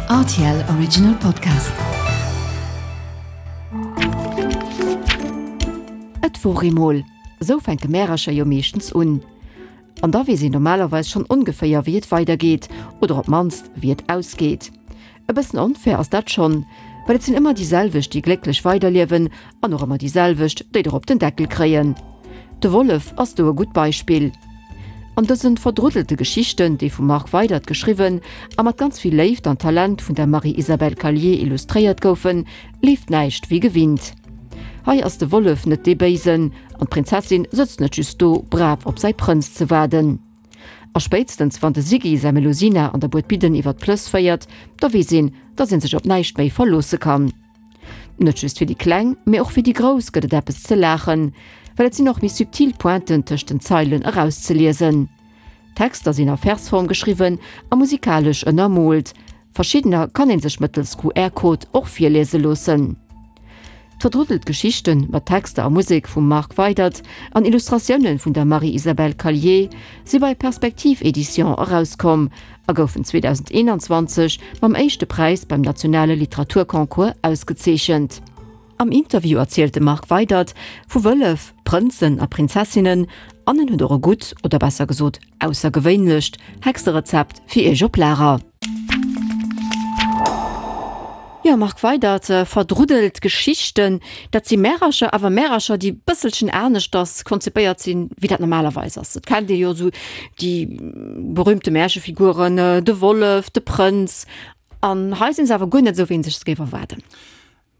Rtl Original Podcast. Et wor eemol. Esou fänke Märercher jo meeschtens un. An da weess een normalerweis schonn ongeféier wéi et weidergeet, oder op d'mannst wéi et ausgeet. E bëssen onfair ass dat schonn, well et sinn ëmmer déi selwecht, déi glécklech weiderliewen an och ëmmer déi selwecht, déi der op den Deckel kréien. De Wollef ass do e gutt Beispill. An dësen verdruddelte Geschichten, déi vum Marc Weydert geschriwwen a mat ganz vill Léift an Talent vun der Marie-Isabelle Callier illustréiert goufen, leeft näischt wéi gewinnt. Hei ass de Wollef net dee Béisen an d'Prinzessin sëtzt net just do, brav op säi Prënz ze waarden. A spéitstens wann de Siggy säi Melusina an der Buedbidden iwwer d'Plëss féiert, da weess een, dass een sech op näischt méi verloosse kann. Net just fir déi Kleng, mee och fir déi Grouss gëtt et eppes ze laachen, well et sinn och méi subtil Pointen tëscht den Zeilen erauszeliesen. D'Texter sinn a Versform geschriwwen a musikalesch ënnermoolt. Verschiddener kann een sech mëttels QR-Code och virliese loossen. D'verdruddelt Geschichten, mat Texter a Musek vum Marc Weydert an Illustratioune vun der Marie-Isabelle Callier, si bei Perspektiv Éditions erauskomm a goufen 2021 mam éischte Präis beim nationale Literaturconcours ausgezeechent. Am Interview erzielt de Marc Weydert vu Wëllef, Prënzen a Prinzessinnen an en huet och e gutt, oder besser gesot aussergewéinlecht, Hexerezept fir iech op Lager. Jo, Marc Weydert, verdruddelt Geschichten, dat si Märercher, awer Märercher, déi bësselchen aneschters konzipéiert sinn, wéi dat normalerweis ass. Et kennt ee jo esou déi berühmte Märchefiguren, de Wollef, de Prënz, an hei sinn se awer guer net esou, wéi ee sech se géif erwaarden.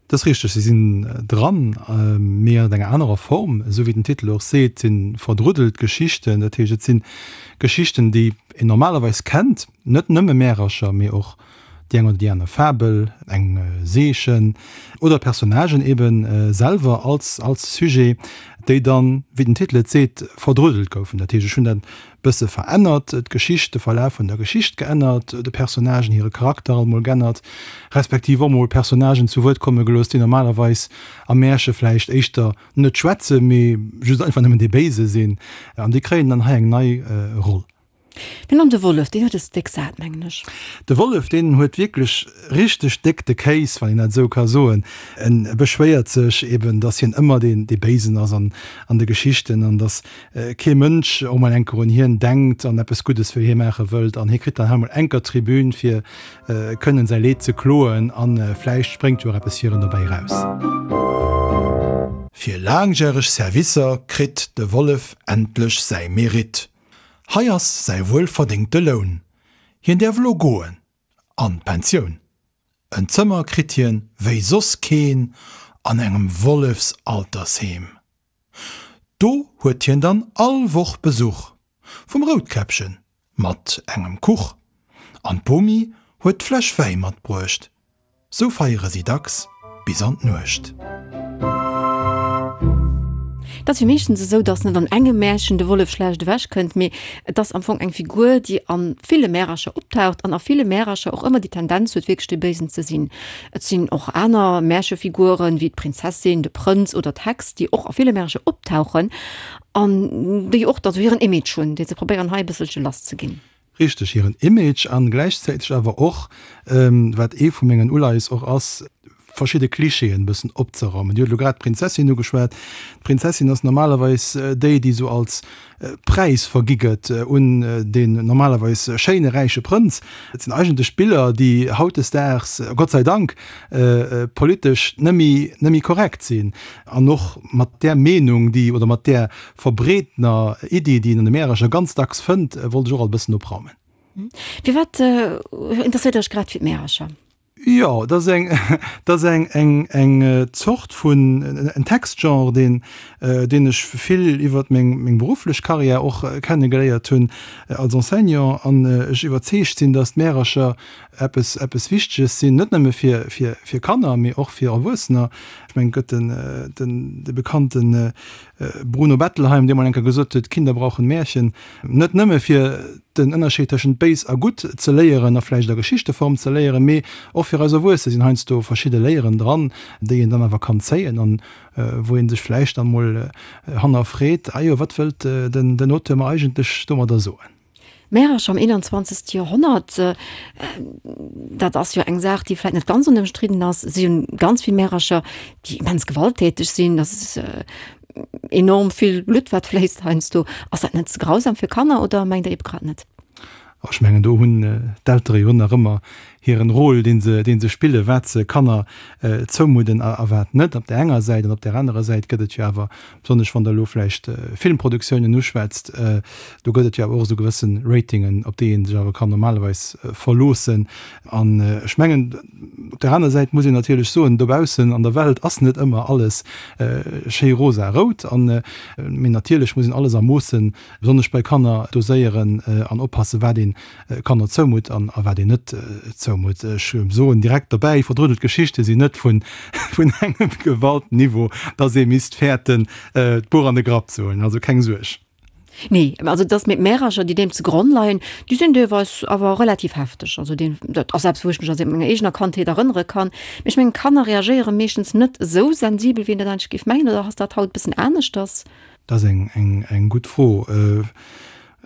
Dat ass richteg, se sinn dran, mee an enger anerer Form. Esou wéi den Titel och seet, si verdruddelt Geschichten. Dat heescht, et si Geschichten, déi een normalerweis kennt, net nëmme Märercher, mee och déi eng oder déi aner Fabel, eng Seechen oder Personnagen ebe selwer als als Sujet, déi dann, wéi den Titel et seet, verdruddelt goufen. Dat heescht, ech hunn dat bësse verännert, d'Geschicht, de Verlaf vun der Geschicht geännert, de Personnagen hire Charakter alt mol g'ännert, respektiv och mol Personnagen zu Wuert komme gelooss, déi normalerweis am Märche vläicht éischter net schwätzen, mee just einfach nëmmen dee Béise sinn. An déi kréien dann hei eng nei Roll. Mee an de Wollef, deen huet es déck sat, mengen ech. De Wollef, deen huet wierklech richteg déck de Kéis, wann een dat esou ka soen. En beschwéiert sech eben, dass hien ëmmer deen, dee Béisen ass an an de Geschichten an dass kee Mënsch och mol enker un hien denkt an eppes Guddes fir hie maache wëllt an hie kritt dann hei mol enker d'Tribün fir kënnen säi Leed ze kloen an vläicht spréngt jo och eppes fir en dobäi raus. Fir laangjäreg Servicer kritt de Wollef endlech säi Mérite. Hei ass säi wuelverdéngte Loun. Hien däerf elo goen an d'Pensioun. En Zëmmer kritt hien wéi soss keen an engem Wollefsaltersheem. Do huet hien dann all Woch Besuch vum Routkäppchen mat engem Kuch, an d'Bomi huet d'Fläsch Wäi matbruecht. Sou feiere si dacks bis an d'Nuecht. Et ass jo meeschtens esou, datt net an engem Märchen de Wollef schlecht ewech kënnt, mee et ass am Fong eng Figur, déi a ville Märercher optaucht an a ville Märercher och ëmmer déi Tendenz huet, wierklech dee Béisen ze sinn. Et sinn och aner Märchefiguren, wéi d'Prinzessin, de Prënz oder d'Hex, déi och a ville Märercher optauchen an déi och da sou hiren Image hunn, dee se probéieren hei e bësselche lass ze ginn. Richteg, hiren Image an gläichzäiteg awer och, wat ee vu mengen Uleies och ass, verschidde Klischeeën e bëssen opzeraumen. Dir hutt elo grad d'Prinzessin ugeschwat. D'Prinzessin ass normalerweis déi, déi sou als Präis vergi gëtt un deen normalerweis schéine räiche Prënz. Et sinn eigentlech Biller, déi hautdesdaags, Gott sei Dank, politesch net méi korrekt sinn. An och mat där Meenung, déi, oder mat där verbreetener Iddi, déi een an de Märercher ganz dacks fënnt, wollt ech och alt e bëssen opraumen. Firwat interesséiert Der Iech grad fir d'Märercher? Jo, dat ass eng, dat ass eng, eng, eng Zort vun, en Textgenre, deen, deen ech vill iwwert meng, meng berufflech Karriär och kennegeléiert hunn als Enseignant an ech iwwerzeegt sinn, datt d'Märercher eppes, eppes Wichteges sinn, net nëmme fir, fir, fir Kanner, mee och fir Erwuessener. Ech mengen, et gëtt den, den, de bekannten Bruno Bettelheim, dee mol eng Kéier gesot huet, Kinder brauchen Märchen. Net nëmme fir den Ënnerscheed tëschent béis a gutt ze léieren a vläicht a Geschichteform ze léieren, mee och fir eis Erwuesse sinn heiansdo verschidde Léieren dran, déi een dann awer kann zéien an wou ee sech vläicht dann mol hannerfreet, Ah jo, wat wëllt den Auteur mer eigentlech domadder soen? Märercher am 21. Joerhonnert, dat ass jo eng Saach, déi vläicht net ganz onëmstridden ass. Si hunn ganz vill Märercher, déi immens gewalttäteg sinn. Dat ass enorm vill Blutt, wat fléisst heiansdo. Ass dat net ze grausam fir Kanner oder mengt Der eebe grad net? Ech mengen, do hunn d'Eltere jo nach ëmmer hiren Rôle, dee se, dee se spillen, wat se Kanner zoumudden a wat net, op där enger Säit. An op där anerer Säit gëtt et jo awer, besonnesch wann Der elo vläicht Filmproduktiounen uschwätzt, do gëtt et jo awer och esou gewësse Ratingen, op déi ee sech awer kann normalerweis verloossen. An ech mengen, op där aner Säit muss een natierlech soen, dobaussen an der Welt ass net ëmmer alles schéi rosa-rout. An, mee natierlech muss een alles a Moossen, besonnesch bei Kanner, doséieren an oppassen, wat een Kanner zoumutt an a wat een net zoumutt. Ech soen direkt dobäi, verdruddelt Geschichte sinn net vun vun engem Gewaltniveau, dass ee misst fäerten, d'Buch an de Grapp ze huelen. Also keng Suerg. Nee, also dass mir d'Märercher, déi deem ze Gronn leien, déi sinn deelweis awer relativ hefteg. Also deen, dat ass eppes, wou ech mech aus menger eegener Kandheet erënnere kann. Mee ech mengen, Kanner reagéiere meeschtens net esou sensibel, wéi een dat eigentlech géif mengen. Oder ass dat haut e bëssen aneschters? Dat ass eng, eng, eng gutt Fro.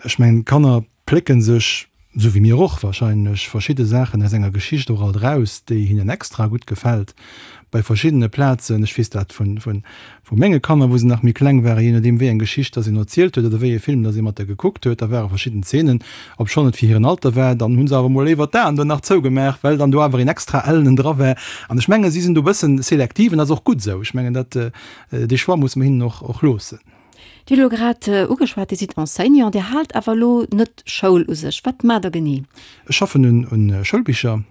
Ech mengen, Kanner plécken sech, esou wéi mir och wahrscheinlech, verschidde Saachen aus enger Geschicht och alt eraus, déi hinnen extra gutt gefält. Bei verschiddene Plazen, ech weess dat vun, vun, vu menge Kanner, wou se nach méi kleng waren, jee nodeem wéi eng Geschicht dass een erzielt huet oder wéi ee Film dass ee mat der gekuckt huet, da ware verschidden Zeenen, obschonn et fir hiren Alter war, dann hu se awer mol léiwer d'Aen do nach zougemaach, well dann do awer een extra ellenen dra war. An ech mengen, si sinn do e bëssen selektiv an dat ass och gutt esou. Ech mengen, dat, dee Choix musse mer hinnen och, och loossen. Dir hutt elo grad ugeschwat, Dir sidd Enseignant, Dir haalt awer elo net Schoul u sech. Wat maacht Der genee? Ech schaffen un Schoulbicher,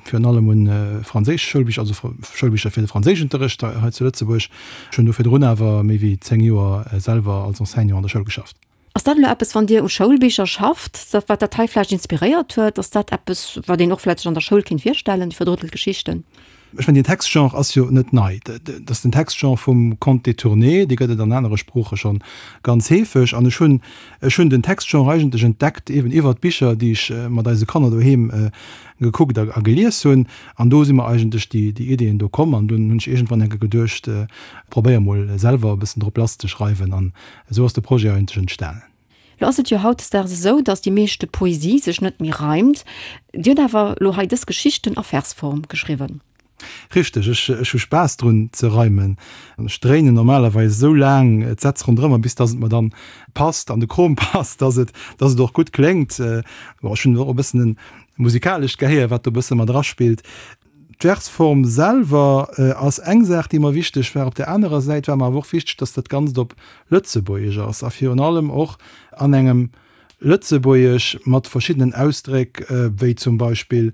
virun allem un franséisch Schoulbicher, also Schoulbicher fir de Franséischunterrecht hei zu Lëtzebuerg. Ech hunn do virdrun awer méi wéi 10 Joer selwer als Enseignant an der Schoul geschafft. Ass dat elo eppes, wann Dir u Schoulbicher schafft, dat wat dat hei vläicht inspiréiert huet? Ass dat eppes, wat een och vläicht sech an der Schoul kéint virstellen, déi verdrëttelt Geschichten? Ech mengen, deen Textgenre ass jo net nei. Dat ass den Textgenre vum Conte détourné, dee gëtt et an anere Sprooche scho ganz heefeg. An ech hunn, ech hunn den Textgenre eigentlech entdeckt eeben iwwert d'Bicher, déi ech mat eise Kanner doheem gekuckt a gelies hunn. An do si mer eigentlech déi, déi Ideeën do komm. An dunn hunn ech iergendwann eng Kéier geduecht, probéier mol selwer e bëssen drop lass ze schreiwen. An esou ass de Projet eigentlech entstanen. Lo ass et jo hautdesdaags esou, datt déi meeschte Poesie sech net méi reimt. Dir hutt awer lo hei dës Geschichten a Versform geschriwwen. Richteg, ech ech hu Spaass drun ze reimen. An ech dréinen normalerweis esou laang d'Sätz ronderëmmer, bis datt et mer dann passt, an de Krom passt, datt et datt et och gutt kléngt. Bon, ech hunn och e bëssen e musikalescht Gehéier, wat do e bësse mat eraspillt. D'Versform selwer ass eng Saach, déi mer wichteg war. Op där anerer Säit war mer awer och wichteg, dass dat Ganzt op Lëtzebuergesch ass a virun allem och an engem Lëtzebuergesch mat verschiddenen Ausdréck, wéi zum Beispill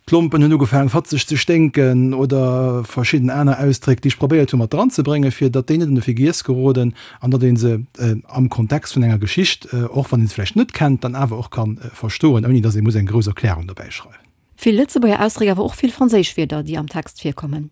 d'Lompen hunn ugefaangen fatzeg ze sténken oder verschidden aner Ausdréck, déi ech probéiert hu mat dranzebréngen, fir datt déi net an de Vergiess geroden an datt ee se am Kontext vun enger Geschicht, och wann ee se vläicht net kennt, dann awer och ka verstoen, ouni datt ee muss eng grouss Erklärung dobäi schreiwen. Vill Lëtzebuerger Ausdréck, awer och vill franséisch Wierder, déi am Text virkommen.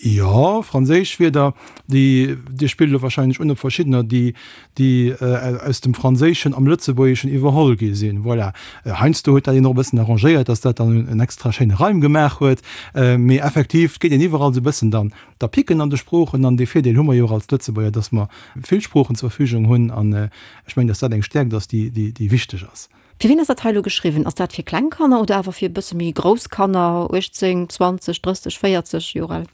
Jo, franséisch Wierder, déi, Dir spillt elo warscheinlech un op verschiddener, déi, déi aus dem Franséischen am Lëtzebuergeschen iwwerholl gi sinn. Voilà. Heiansdo huet dat een och e bëssen arrangéiert, dass dat dann en extra schéine Reim gemaach huet. Mee effektiv, et geet een iwwerall esou e bëssen dann da picken an de Sproochen. An dee Virdeel hu mer jo och als Lëtzebuerger, dass mer vill Sproochen zur Verfügung hunn. An ech mengen, dass dat eng Stäerkt ass, déi, déi, déi wichteg ass. Fir wien ass dat hei elo geschriwwen? Ass dat fir kleng Kanner oder awer fir e bësse méi grouss Kanner, 18, 20, 30, 40 Joer al?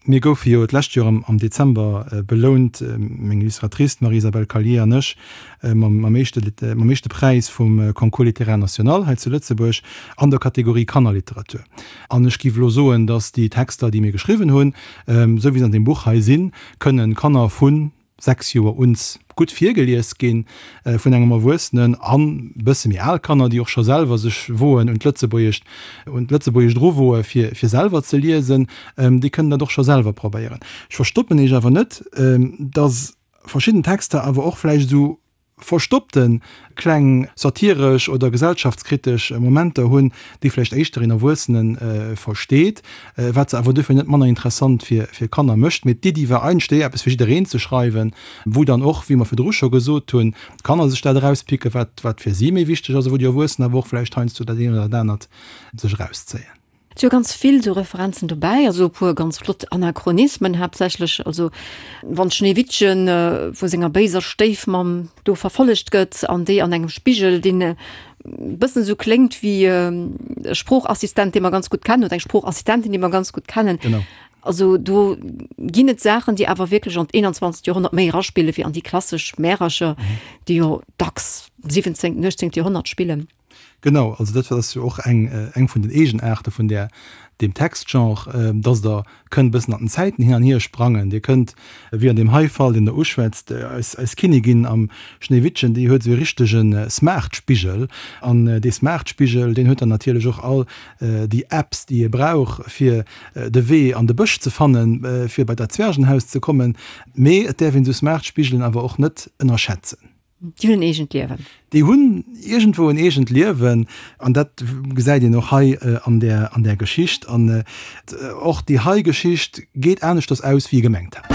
Mir goufe jo d'lescht Joer am Dezember belount, meng Illustratrice, d'Marie-Isabelle Callier an ech, mam éischte mam éischte Präis vum Concours littéraire national hei zu Lëtzebuerg an der Kategorie Kannerliteratur. An ech géif elo soen, datt déi Texter, déi mir geschriwwen hunn, esou wéi se an deem Buch hei sinn, kënnen Kanner vun 6 Joer uns gutt virgelies ginn vun engem Erwuessenen an bësse méi al Kanner, déi och scho selwer sech woen un d'Lëtzebuergescht un d'Lëtzebuergescht eruwoe fir fir selwer ze liesen, déi kënnen dat och scho selwer probéieren. Ech verstoppen Iech awer net, dass verschidden Texter awer och vläicht esou verstoppte kleng satiresch oder gesellschaftskritesch Momenter hunn, déi vläicht éischter een Erwuessene versteet, wat se awer duerfir net manner interessant fir Kanner mécht. Mee d'Iddi war eigentlech déi, eppes fir jiddereen ze schreiwen, wou dann och, wéi mer virdru scho gesot hunn, d'Kanner sech dat erauspicken, wat fir si méi wichteg ass, a wou déi Erwuessen awer och vläicht heiansdo dat eent oder dat anert sech erauszéien. Et si jo ganz vill esou Referenzen dobäi, also e puer ganz flott Anachronismen haaptsächlech, also wann d'Schneewittchen vu senger béiser Stéifmamm do verfollegt gëtt an déi an engem Spigel, deen e bëssen esou kléngt wéi e Sproochassistent, dee mer ganz gutt kennen, oder eng Sproochassistentin, déi mer ganz gutt kennen. Genau. Also do ginn et Saachen, déi awer wierklech an d'21. Joerhonnert méi eraspille wéi an déi klassesch Märercher, déi jo dacks 17., 18. Joerhonnert spillen. Genau, also dat ass jo och eng eng vun den Eegenaarte vun där deem Textgenre, dass Der kënnt e bëssen an den Zäiten hin an hier sprangen. Dir kënnt, wéi an deem hei Fall, deen Der uschwätzt, eis eis Kinnigin am Schnéiwittchen, déi huet esou e richtege Smartspigel. An dee Smartspigel, deen huet dann natierlech och all déi Apps, déi ee brauch, fir de Wee an de Bësch ze fannen, fir bei dat Zwergenhaus ze kommen. Mee et däerf een esou Smartspigelen awer och net ënnerschätzen. Déi hunn en eegent Liewen. Déi hunn iergendwou en eegent Liewen an dat gesäit een och hei an där, an där Geschicht. An och déi hei Geschicht geet aneschters aus, wéi ee gemengt hat.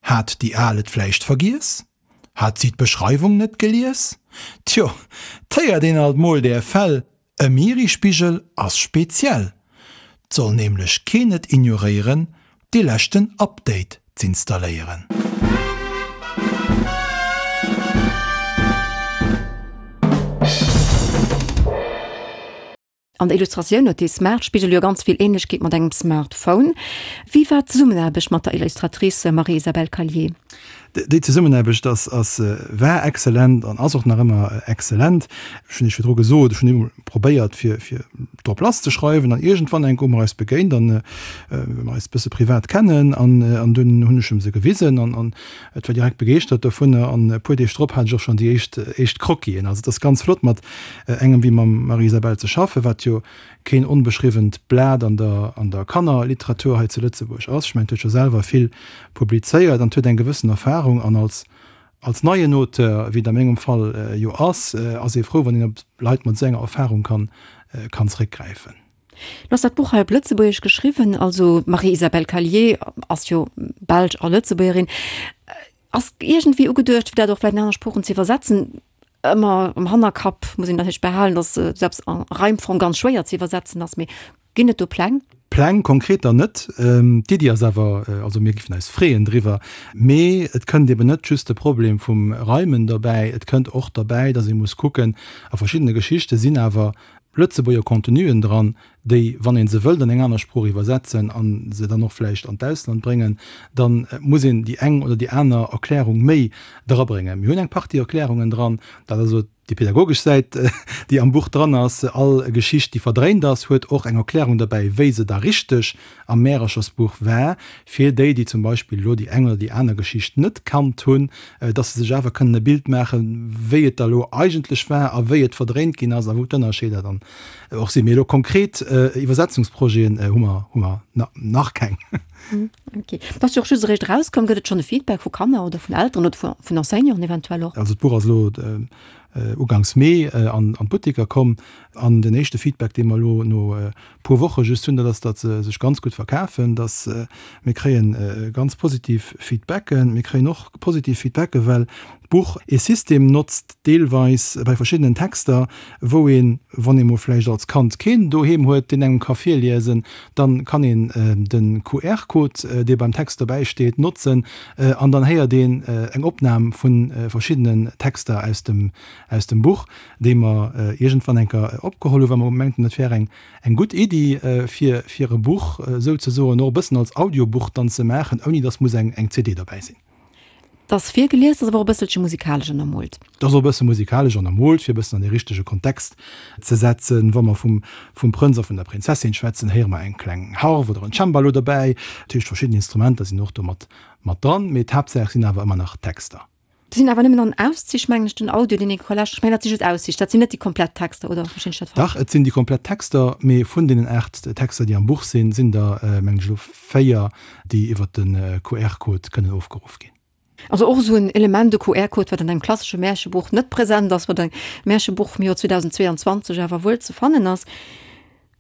Hat déi Al et vläicht vergiess? Hat si d'Beschreiwung net gelies? Tjo, 't héiert een alt mol där Fäll, E Mirispigel ass speziell, 't soll nämlech keen et ignoréieren, dee leschten Update z'installéieren. An der Illustratioun huet dee Smartspigel jo ganz vill Ähnlechkeet mat engem Smartphone. Wéi war d'Zesummenaarbecht mat der Illustratrice Marie-Isabelle Callier? Déi Zesummenaarbecht ass, ass, war exzellent an ass och nach ëmmer exzellent. Ech hunn Iech virdru gesot, ech hunn eemol probéiert, fir, fir drop lass ze schreiwen an iergendwann enk hu mer eis begéint an well mer eis e bësse privat kennen an, an dunn hunn ech em se gewisen an, an et war direkt begeeschtert dovunner an e puer Deeg drop hat ech och schonn déi éischt, éischt Croquisen. Also et ass ganz flott mat engem wéi mam Marie-Isabelle ze schaffen, wat jo keen onbeschriwwent Blat an der an der Kannerliteratur hei zu Lëtzebuerg ass. Ech mengen, et huet scho selwer vill publizéiert an et huet eng gewëssen Erfahrung. An als als neien Auteur, wéi et a mengem Fall jo ass, ass ee frou, wann een op Leit mat esou enger Erfahrung kann kann zréckgräifen. Lo ass dat Buch hei op Lëtzebuergesch geschriwwen. Also d'Marie-Isabelle Callier ass jo Belsch a Lëtzebuergerin. Ass iergendwéi ugeduecht, fir dat och vläicht an aner Sproochen ze iwwersetzen? Ëmmer am Hannerkapp muss een natierlech behalen, datt selbst a Reimform ganz schwéier ze iwwersetzen ass. Mee ginn et do Pläng? Pläng konkreter net. D'Iddi ass awer, also mir géifen eis freeën driwwer. Mee et kënnt eben net just de Problem vum Reimen derbäi, et kënnt och derbäi, datt ee muss kucken, a verschiddene Geschichte sinn awer Lëtzebuerger Contenuen dran, déi, wann ee se wëllt an eng aner Sprooch iwwersetzen a se dann och vläicht an d'Ausland bréngen, da muss een déi eng oder déi aner Erklärung méi drabréngen. Mir hunn eng Partie Erklärungen dran, dat ass elo déi pedagogesch Säit, déi am Buch dran ass. All Geschicht, déi verdréint ass, huet och eng Erklärung derbäi, wéi se da richteg am Märerchersbuch war, fir déi, déi zum Beispill elo déi eng oder déi aner Geschicht net kannt hunn, dass se sech awer kënnen e Bild maachen, wéi et da elo eigentlech war a wéi et verdréint ginn ass a wou d'Ënnerscheeder dann och sinn. Mee elo konkret Iwwersetzungsprojeten hu mer, hu mer nach keng. Ok. Et ass jo och just eréischt erauskomm. Gëtt et schonn e Feedback vu Kanner oder vun Elteren oder vun Enseignanten eventuell och? Also d'Buch ass elo uganks Mee an d'Butteker komm an den éischte Feedback, dee mer elo no puer Woche just hunn, dat ass, datt se sech ganz gutt verkafen, datt mir kréie ganz positiv Feedbacken. Mir kréien och positiv Feedbacke well d'Buch ee System notzt, deelweis bei verschiddenen Texter, wou een, wann ee mol vläicht als Kand keen doheem huet, deen engem ka virliesen, dann kann een de QR-Code, dee beim Text dobäi steet, notzen an dann héiert een eng Opnam vu verschiddenen Texter aus dem aus dem Buch, déi mer iergendwann eng Kéier opgeholl hunn, well mer mengten, et wär eng eng gutt Iddi, fir fir e Buch souzesoen och e bëssen als Audiobuch dann ze maachen, ouni datt muss eng eng CD dobäi sinn. Et ass virgelies, ass awer och e bësselche musikalesch ënnermoolt. Et ass och e bësse musikalesch ënnermoolt, fir e bëssen an dee richtege Kontext ze setzen. Wa mer vum vum Prënz a vun der Prinzessin schwätzen, héiere mer eng kleng Harf oder en Cembalo dobäi. Dat heescht, verschidden Instrumenter sinn och do mat mat dran, mee d'Haaptsaach sinn awer ëmmer nach d'Texter. Dat sinn awer nëmmen an Auszich, mengen ech, den Audio, deen ee ka lauschteren. Ech mengen, dat si just Auszich, dat sinn net déi komplett Texter, oder verstinn ech dat falsch? Dach, et sinn déi komplett Texter, mee vun deenen 8 Texter, déi am Buch sinn, sinn der, mengen ech elo, 4, déi iwwer de QR-Code kënnen ofgeruff ginn. Also och esou en Element, de QR-Code, wat an engem klassesche Märchebuch net present ass, wat am Märchebuch vum Joer 2022 awer wuel ze fannen ass.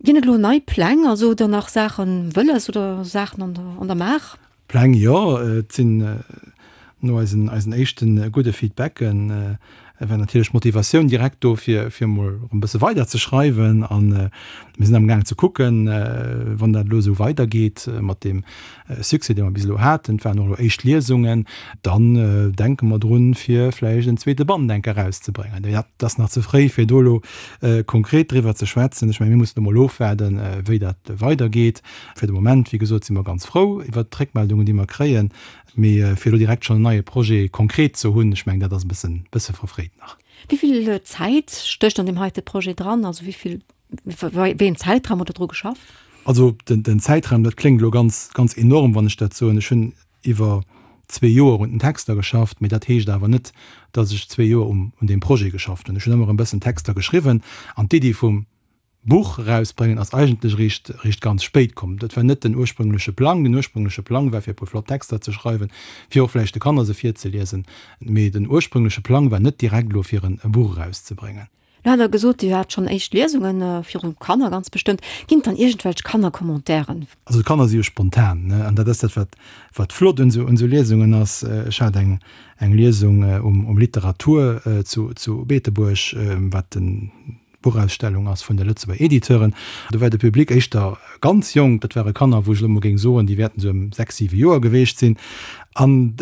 Ginn et elo nei Pläng, also hutt Der nach Saache wëlles oder Saachen an der, an der Maach? Pläng, jo. Et sinn no eisen, eisen éischte gudde Feedbacken. war natierlech d'Motivatioun direkt do, fir, fir emol erëm e bësse weider ze schreiwen. A mir sinn amgaang ze kucken, wann dat elo esou weidergeet mat deem Succès, dee mer bis elo haten, et waren och elo éischt Liesungen, dann denke mer drun, fir vläicht en zweete Band enk erauszebréngen. Mee dat ass nach ze fréi, fir do elo konkret driwwer ze schwätzen. Ech mengen, mir mussen emol ofwaarden, wéi dat weidergeet. Fir de Moment, wéi gesot, si mer ganz frou iwwert d'Réckmeldungen, déi mer kréien. Mee fir elo direkt schonn en neie Projet konkret ze hunn, ech mengen, dat ass e bëssen, bësse verfréit nach. Wéi vill Zäit stécht an deem heite Projet dran? Also wéi vill, wéi een Zäitraum hutt Der dru geschafft? Also den, den Zäitraum, dat kléngt elo ganz, ganz enorm, wann ech dat soen. Ech hunn iwwer zwee Joer un den Texter geschafft, mee dat heescht awer net, datt ech zwee Joer um, un deem Projet geschafft hunn. Ech hunn ëmmer e bëssen Texter geschriwwen an d'Iddi vum Buch erausbréngen ass eigentlech eréischt eréischt ganz spéit komm. Dat war net den ursprüngleche Plang. Den ursprüngleche Plang war fir e puer flott Texter ze schreiwen, fir och vläicht de Kanner se virzeliesen. Mee den ursprüngleche Plang war net direkt elo fir en e Buch erauszebréngen. Lo hat Der gesot, Dir hat schonn éischt Liesunge viru Kanner ganz bestëmmt. Ginn et dann iergendwelch Kannercommentairen? Also d'Kanner si jo spontan, ne? An dat ass dat wat wat flott un esou un esou Liesungen ass. Ech hat eng eng Liesung um um Literatur zu zu Beetebuerg, wat den Buchausstellung ass vun de Lëtzebuerger Editeuren. Do war de Public éischter ganz jonk, dat ware Kanner, wou ech elo mol géing soen, déi wäerten esou ëm 6, 7 Joer geweecht sinn. An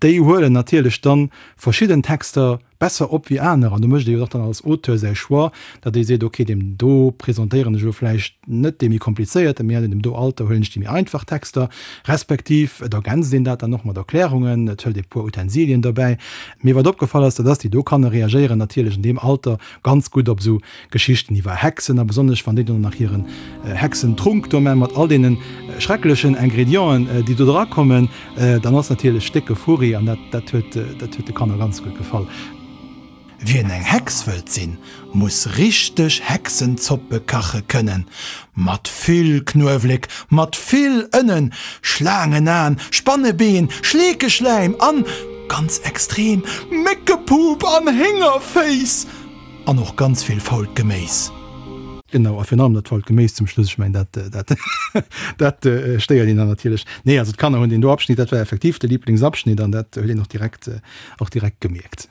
déi huelen natierlech dann verschidden Texter besser op wéi aner. An do mécht ee jo och dann als Auteur säi Choix, datt ee seet, okay, deem do presentéieren ech elo vläicht net dee méi komplizéierten, mee an deem do Alter huelen ech déi méi einfach Texter. Respektiv et ergänzt een dat dann och mat Erklärungen, et hëlt ee puer Utensilien dobäi. Mee wat opgefall ass, dat ass, déi do Kanner reagéieren natierlech an deem Alter Ganz gutt op esou Geschichten iwwer Hexen, a besonnesch wann déi dann nach hiren Hexentrunk do man mat all deenen schrecklechen Ingredienten déi do dra kommen, dann ass natierlech décke Furri an dat dat huet dat huet de Kanner ganz gutt gefall. Wien eng Hex wëllt sinn, muss richteg Hexenzoppe kache kënnen, mat vill Knuewléck, mat vill Ënnen, Schlaangenaen, Spannebeen, Schleekeschläim an, ganz extrem, Méckepup an Héngerféiss! An och ganz vill fault Geméis. Genau, a virun allem dat fault Geméis zum Schluss, ech mengen, dat, dat, dat stéiert een dann natierlech. Nee, also d'Kanner hunn deen do Abschnitt, dat war effektiv de Liblingsabschnitt an dat huet een och direkt, och direkt gemierkt.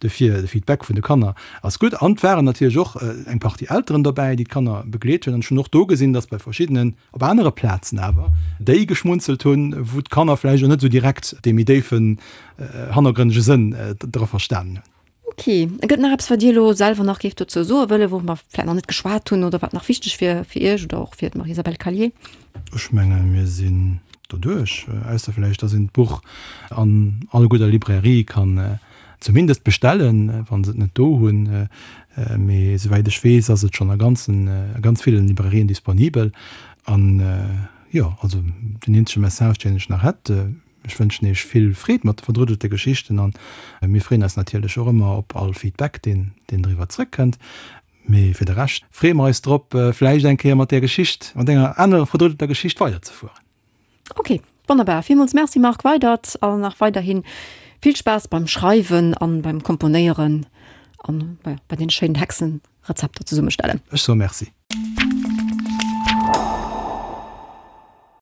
Dofir, de Feedback vun de Kanner ass gutt. An et waren natierlech och eng Partie Elteren dobäi, déi d'Kanner begleet hunn. An ech hunn och do gesinn, dass bei verschiddenen, op anere Plazen awer, déi geschmunzelt hunn, wou d'Kanner vläicht och net esou direkt dee méi déifen, hannergrënnege Sënn dra verstanen hunn. Ok. Gëtt nach eppes, wat Dir elo selwer nach géift dozou soe wëllen, wou mer vläicht nach net geschwat hunn oder wat nach wichteg wier fir Iech oder och fir d'Marie-Isabelle Callier? Ech mengen, mir sinn doduerch, ausser vläicht, dass een d'Buch an all gudder Librairie kann zumindest bestellen, wa se et net do hunn. Mee souwäit ech weess, ass et schonn a ganzen, a ganz villen Librairien disponibel. An jo, also den eenzege Message, deen ech nach hätt, Ech wënschen Iech vill Freed mat de verdruddelte Geschichten an mir freeën eis natierlech och ëmmer op all Feedback, deen deen driwwer zrëckkënnt. Mee fir de Rescht freeë mer eis drop, vläicht eng Kéier mat där Geschicht, mat enger anerer verdruddelter Geschicht weiderzefueren. Ok, wonnerbar. Villmools Merci Marc Weydert an nach weiderhin vill Spaass beim Schreiwen an beim Komponéieren an bei den schéinen Hexenrezepter zesummestellen. Ech soe Merci.